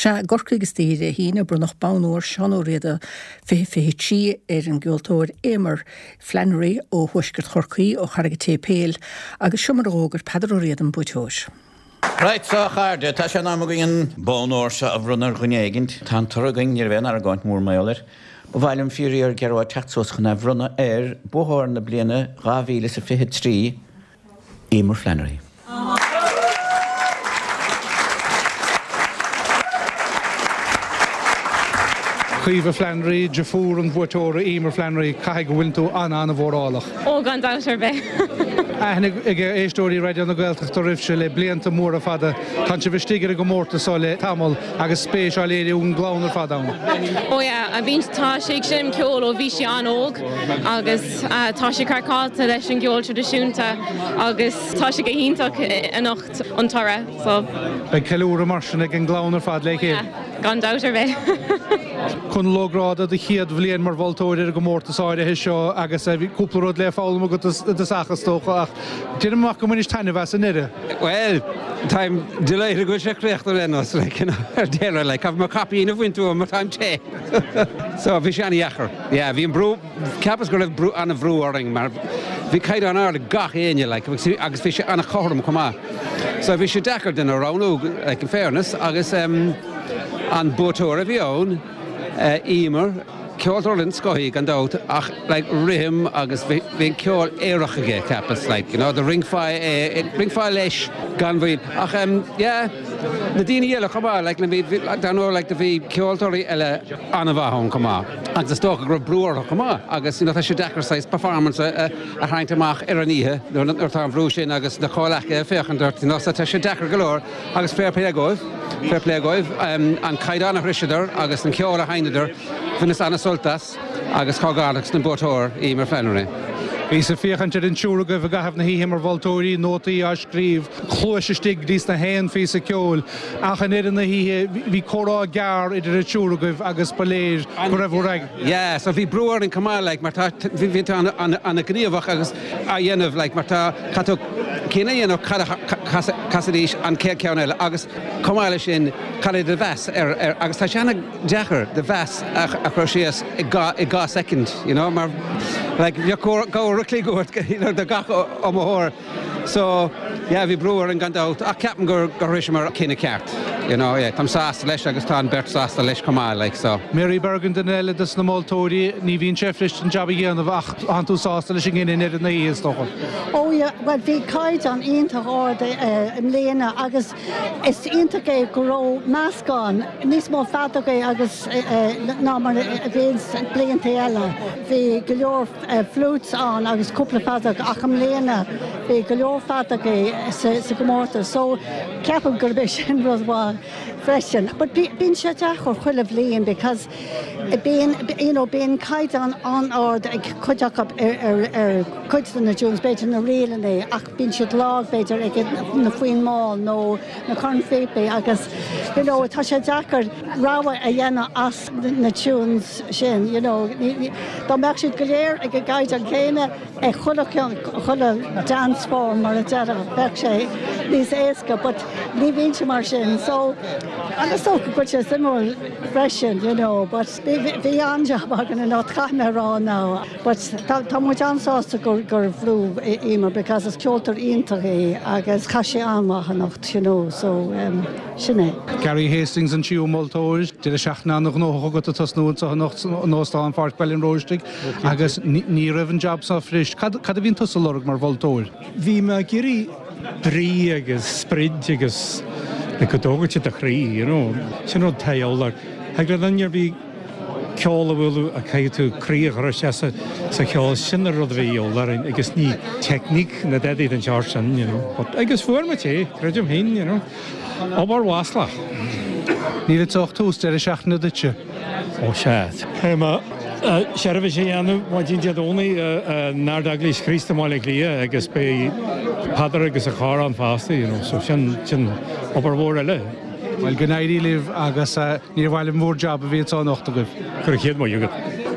Sea, i gCorcaigh istoíche Dé hAoine, bronnadh Bonn Óir Seán Ó Riada 2023 ar an gceoltóir Eimear Flannery ó thuaisceart Chorcaí, ó Charraig an tSéipéil, agus seo mar a dh'fhógair Peadar Ó Riada an buaiteoir. Right so a chairde, tá sé in am againn an bonn óir seo a bhronnadh ar dhuine éigint. Tá an toradh againn, ní raibh aon argóint mór mar gheall air. Ba mhaith liom fíor-fhíor Gearóid teacht suas chun é a bhronnadh ar buaiteoir na bliana 2023, Eimear Flannery. Caoimhe Flannery, deirfiúr an bhuaiteora Eimear Flannery, caithfidh go bhfuileann tú an-an-mhórálach. Ó, gan dabht ar bith. Aithne ag éisteoirí Raidió na Gaeltachta oraibhse le blianta móra fada. Tánn sibh istigh ar an gcomórtas so le tamall agus spéis á léiriú ag an gclann ar fad ann. Ó yeah, bíonn, tá sí ag seinm ceoil ó bhí sí an-óg agus tá sí craiceáilte leis an gceol traidisiúnta agus tá sé go hiontach anocht an toradh so. Beidh ceiliúradh mar sin ag an gclann ar fad le chéile. Oh yeah, gan dabht ar bith. Conall Ó Gráda, do chéad bhliain mar mholtóir ar an gcomórtas áirithe seo agus bhí cúpla rud le foghlaim agat i dtosach is dócha ach deinim amach go mbainis taitneamh as i ndeireadh. Bhuel, táim delighted go bhfuil sé críochnaithe le nós, like, you know, ar deireadh, like, caithfidh mé caipín a bhaint uaim mar táim te. So, bhí sé an-dheacair. Yeah, bhí an brú, Cheapas go raibh brú, an-bhrú orainn mar bhí caighdeán ard ag gach éinne like agus bhí sé an-chothrom chomh maith. So bhí sé deacair duine a roghnú like in fairness agus em an buaiteoir a bhí ann eh Eimear, ceoltóir den scoth í gan dabht ach like rithim agus bhí bhí an ceol aerach aige cheapas like you know do rinncfeá é rinncfeá leis gan mhoill ach em yeah na daoine eile chomh maith like na bhí bhí dar ndóigh like do bhí ceoltóirí eile an-mhaith ann chomh maith. Agus is dócha go raibh brú orthu chomh maith agus you know tá sé deacair saghas performance a tharraingt amach ar an oíche nuair atá an bhrú sin agus na comhleacaithe ag féachaint ort you know so tá sé deacair go leor agus fair play dhóibh, fair play dhóibh an caighdeán a shroiseadar agus an ceol a sheinneadar, bhaineas an-sult as agus comhghairdeachas don buaiteoir, Eimear Flannery. Bhíos ag féachaint ar an triúr agaibh i gcaitheamh na hoíche mar mholtóirí, nótaí á scríobh, cluais istigh go dtí sna haon phíosa ceoil. Ach i ndeireadh na hoíche, bhí comhrá gearr idir an triúr agaibh agus ba léir go raibh bhur. Yeah, so bhí brú orainn chomh maith, like, mar tá, bhí tú an-ghníomhach agus á dhéanamh, like, mar tá, caithfidh tú cinneadh a dhéanamh cad a chasfaidís an chéad cheann eile agus chomh maith leis sin, cad é do mheas ar, ar, agus tá sé an-deacair do mheas a chur síos i 2 soicind, you know, mar, like, bheadh uair a chloig uait, you know, do gach iomaitheoir. So, yeah, bhí brú orainn gan dabht, ach ceapaim gur gur shroiseamar cinneadh ceart, you know, yeah, táim sásta leis agus tá an bheirt sásta leis chomh maith, like, so. Mary Bergin, duine eile dos na moltóirí, ní bhíonn sé fuirist an jab a dhéanamh ach tánn tú sásta leis an gcinneadh i ndeireadh na hoíche, is dócha. Oh yeah, bhuel bhí caighdeán iontach ard i mbliana agus is iontach é go raibh meascán, níos mó feadógaí agus ná mar a bhíonn blianta eile. Bhí go leor. flutes ann agus cúpla feadóg ach i mbliana bhí go leor feadógaí sa gcomórtas so ceapaim gurb é sin rud mhaith freisin. But bíonn sé deacair chuile bhliain because bíonn you know bíonn caighdeán an-ard ag cuid acu ar ar cuid de na tunes, b'fhéidir na ríleanna ach bíonn siad lag b'fhéidir ag na foinn mall nó na cornphíopaí agus you know tá sé deacair rogha a dhéanamh as na tunes sin you know dá mbeadh siad go léir ag an gcaighdeán céanna ag chuile chuile dance form mar a déarfá bheadh sé níos éasca but ní bhíonn sé mar sin so agus is dócha go bhfuil sé suimiúil freisin you know but bhí an-jab againn anocht caithfidh mé a rá now. But tá muid an-sásta gur bhuaigh Eimear because is ceoltóir iontach í agus chaith sí an-mhaith anocht you know so sin é. Gary Hastings an tríú moltóir, deireadh seachtaine an-ghnóthach agat ag tosnú anseo anocht in Óstán Pháirc Bhaile an Róistigh agus ní raibh an jab seo fuirist. Cad a bhíonn tusa ag lorg mar mholtóir? Bhí mé ag iarraidh brí agus sprid agus like go dtógfadh sé do chroí, you know. Sin rud atá a dhíobháil. Thig le duine ar bith ceol a bhualadh ach caithfidh tú croí a chur isteach sa cheol, sin an rud a bhí a dhíobháil orainn agus ní teicníc ná dadaí den tseort sin, you know. But, agus fuair muid é, creidim féin, you know. Obair mhaslach. Níl anseo ach tús deireadh seachtaine duitse. Ó sea. Caithfidh mé seirbhís a dhéanamh maidin Dé Domhnaigh in Ard-Eaglais Chríost i mBaile Átha Cliath agus beidh Peadar agus a chór ann fosta, you know, so sin, sin obair mhór eile. Bhuel, go n-éirí libh agus níor mhaith liom bhur jab a bhí anseo anocht agaibh. Go raibh chéad maith agat.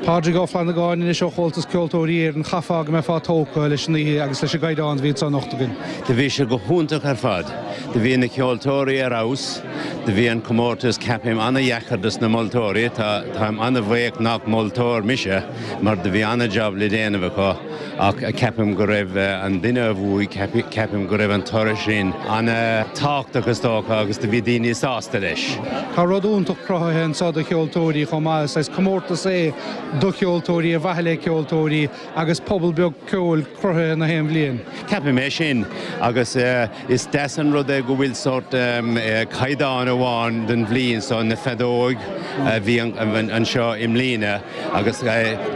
Pádraig Ó Flannagáin anois ó Chomhaltas Ceoltóirí Éireann, chaithfeá go mbeifeá tógtha leis an oíche agus leis an gcaighdeán a bhí anso anocht againn. Do bhí sé go hiontach ar fad. Do bhí na ceoltóirí ar fheabhas. Do bhí an comórtas, ceapaim, ana-dheacair dos na moltóirí. Tá, táim ana-bhuíoch nach moltóir mise mar do bhí ana-jab le déanamh acu ach ceapaim go raibh an duine a bhuaigh, ceapaim go raibh an toradh sin ana-tábhachtach is dócha agus do bhí daoine sásta leis. Tá rud iontach cruthaithe anseo do cheoltóirí chomh maith. Is saghas comórtas é do cheoltóirí, ar mhaithe le ceoltóirí, agus pobal beag ceoil cruthaithe na haon bhliain. Ceapaim é sin agus is deas an rud é go bhfuil sórt caighdeán amháin don bhliain so, na feadóig a bhí anseo i mbliana agus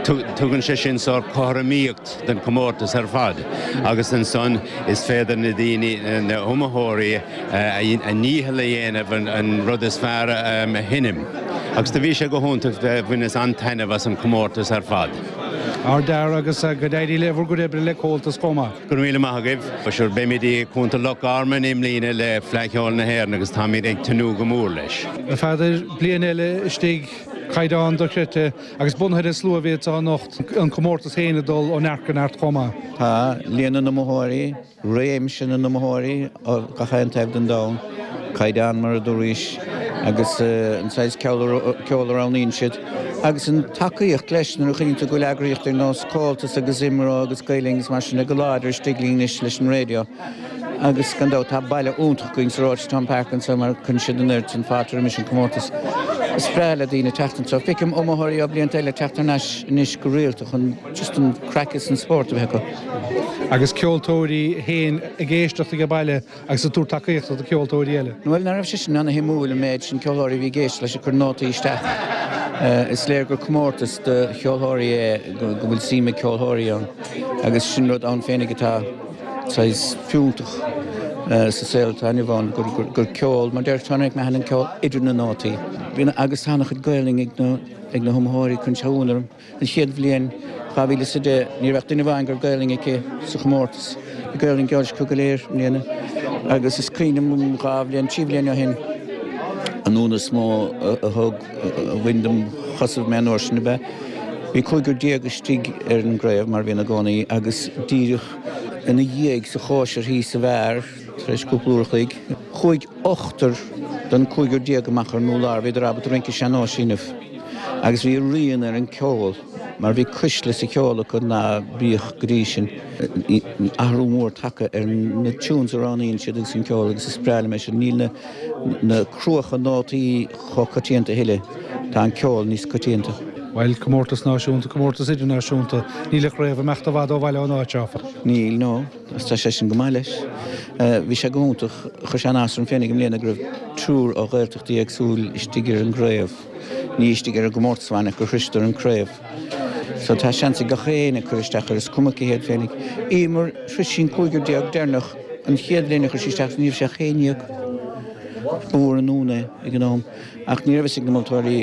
tugann sé sin sórt cothromaíocht don chomórtas ar fad agus ansan is féidir na daoine, na hiomaitheoirí, a ndícheall a dhéanamh an rud is fearr a sheinm agus do bhí sé go hiontach, bhaineas an-taitneamh as an chomórtas ar fad. Ardfhear agus go n-éirí le bhur gcuid oibre le Comhaltas chomh maith. Go raibh míle maith agaibh. Sure beimid i gContae Loch Garman i mbliana le Fleadh Cheoil na hÉireann agus táimid ag tnúth go mór leis. A Pheadair, bliain eile istigh, caighdeán dochreidte agus bunaithe ar an slua a bhí anseo anocht, an comórtas féin ag dul ó neart go neart chomh maith. Tá líon na n-iomaitheoirí réimse na n-iomaitheoirí ó gach aon taobh den domhan, caighdeán mar a dúraís, agus an saghas ceoil a roghnaíonn siad, agus an tacaíocht leis nuair a chuimhníonn tú go bhfuil eagraíochtaí ar nós Comhaltas agus IMRO agus Gael Linn agus mar sin de go láidir istigh linn anois leis an raidió. Agus gan dabht tá baile iontach againn sa Rochestown Park anseo mar cuireann siad an oiread sin fáilte roimis an comórtas. Is breá le daoine teacht anseo. Feicim iomaitheoirí ó blianta eile teacht thar n-ais anois go rialta chun just an craic is an spórt a bheith acu. Agus ceoltóirí féin ag éisteacht age baile agus ag tabhairt tacaíochta do cheoltóirí eile. Bhuel, nach raibh sé sin ana-shuimiúil, an méid sin ceoltóirí a bhí ag éisteacht leis ag cur nótaí isteach. Is léir gur comórtas do cheoltóirí é, go bhfuil suim ag ceoltóirí ann agus sin rud ann féinig atá saghas fiúntach sa saol atá inniu ann, gur ceol, mar deir Tony McMahon, an ceol idir na nótaí. Agus tá ana-chuid Gaelainn ag na hiomaitheoirí, cuireann sé ionadh orm. An chéad bhliain, 2010, ní raibh ach duine amháin go raibh Gaelainn aici sa chomórtas. Bhí Gaelainn Gaeilge acu go léir i mbliana agus is cuimhin liom dhá bhliain, trí bhliain ó shin, an ionadh is mó a thug, a bhain dom chosaibh mé an uair sin ab ea, bhí cúigear déag istigh ar an gcraobh, mar a bhíonn i gcónaí, agus díreach ina dhiaidh sa chóisir thíos sa bheár, tar éis cúpla uair a chloig, chuaigh ochtar den cúigear déag amach ar an urlár, bhíodar ábalta rince sean-nóis a dhéanamh. Agus bhí a rian ar an ceol, mar bhí cuisle sa cheol acu ná bíodh go dtí sin. Athrú mór tagtha ar na tunes a roghnaíonn siad agus an ceol agus is breá liom é sin. Níl na na cruacha nótaí chomh coitianta a thuilleadh, tá an ceol níos coitianta. Bhuel, comórtas náisiúnta, comórtas idirnáisiúnta, níl an chraobh ag imeacht i bhfad ó bhaile ón áit, áfach. Níl, no. Agus tá sé sin go maith leis. Bhí sé go hiontach. Chuir sé an-áthas orm féinig i mbliana go raibh triúr ó Ghaeltachtaí éagsúil istigh ar an gcraobh. Ní istigh ar an gcomórtas amháin ach gur shroiseadar an craobh. So tá seans ag gach éinne cur isteach air, is cuma cé hiad féinig. Emer, shrois sí an cúigear déag deireanach an chéad bhliain a chuir sí isteach, ní raibh sí ach 11. Ba mhór an ionadh é ag an am. Ach ní raibh fhios ag na moltóirí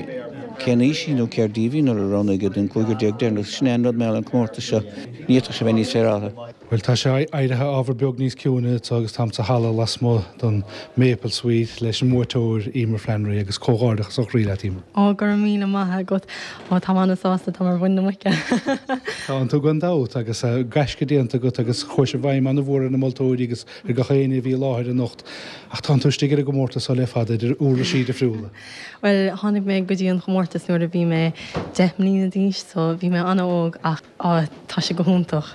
cén aois í nó céard díobh í nuair a roghnaigh iad an cúigear déag deireanach. Sin é an rud mar gheall ar an comórtas seo. Ní fhéadfadh sé bheith níos féaráilte. Bhuel, tá sé éirithe ábhar beag níos ciúine anseo agus táim sa halla lasmuigh den Maple Suite leis an mbuaiteoir, Emer Flannery, agus comhghairdeachas ó chroí leat, Emer. Ó, go raibh míle maith agat. Ó, táim an-sásta, táim ar mhuin na muice. Tánn tú gan dabht, agus gaisce déanta agat agus chuaigh sé i bhfeidhm an-mhór ar na moltóirí agus ar gach éinne a bhí i láthair anocht. Ach tánn tú istigh ar an gcomórtas seo le fada, idir uirlisí difriúla. Bhuel, tháinig mé go dtí an chomórtas nuair a bhí mé 10 mbliana d'aois, so bhí mé an-óg ach. Á, tá sé go hiontach.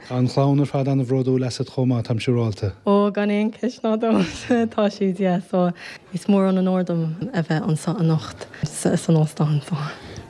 Tá an chlann ar fad an-bhródúil asat chomh maith, táim siúráilte. Ó, gan aon cheist ná dabht, tá siad, yeah. So, is mór an onóir dom a bheith anseo anocht san óstán so.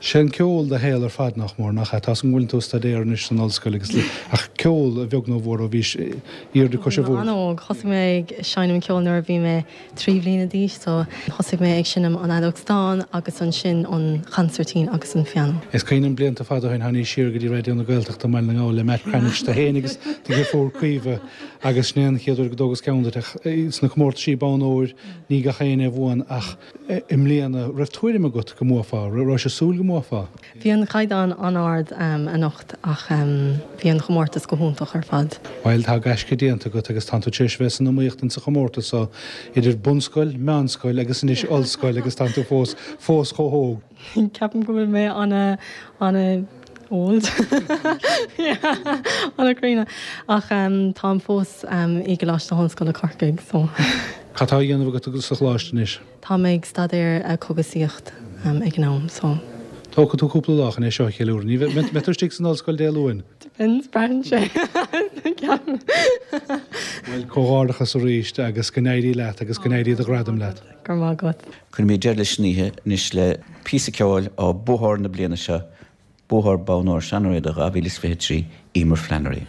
Sé an ceol do shaol ar fad, nach mór, nach ea? Tá 's agam go bhfuileann tú ag staidéar anois san ollscoil agus, ach ceol, a bheag nó a mhór, ó bhís airde cois an bhí mé an-óg. Thosaigh mé ag seinm ceoil nuair a bhí mé 3 bhliana d'aois so thosaigh mé ag seinm an fheadóg stáin agus ansin an chansairtín agus an pianó. Is cuimhin liom blianta fada ó shin tháinís siar go dtí Raidió na Gaeltachta i mBaile na nGall le Matt Cranitch, tú féin agus do dheirfiúr Caoimhe agus sin é an chéad uair go dtógas ceann duit ach sna comórtaisí bonn óir ní gach éinne a bhuann ach i mbliana raibh tuairim agat go mbuafá, raibh sé súil go mbuafá? mbuafá? Bhí an caighdeán an-ard anocht ach bhí an chomórtas go hiontach ar fad. Bhuel, tá gaisce déanta agat agus tánn tú tar éis a bheith san iomaíocht insa chomórtas so, idir bunscoil, meánscoil agus anois ollscoil agus tánn tú fós, fós chomh hóg. Ceapaim go bhfuil mé ana, ana old. Yeah, ana críonna. Ach táim fós i gColáiste na hOllscoile Corcaigh so. Cad tá á dhéanamh agat sa choláiste anois? Tá mé ag staidéar cógaisíocht ag an am so. Tógfaidh tú cúpla lá chun é seo a cheiliúradh. Ní bheidh, mbeidh tú istigh san ollscoil Dé Luain? Depends, braitheann sé. Ceapaim. Bhuel, comhghairdeachas arís agus go n-éirí leat agus go n-éirí do ghradam leat. Go raibh maith agat. Cuirfimid deireadh leis an oíche anois le píosa ceoil ó buathóir na bliana seo, buathóir Bonn Óir Seán Ó Riada 2023, Emer Flannery.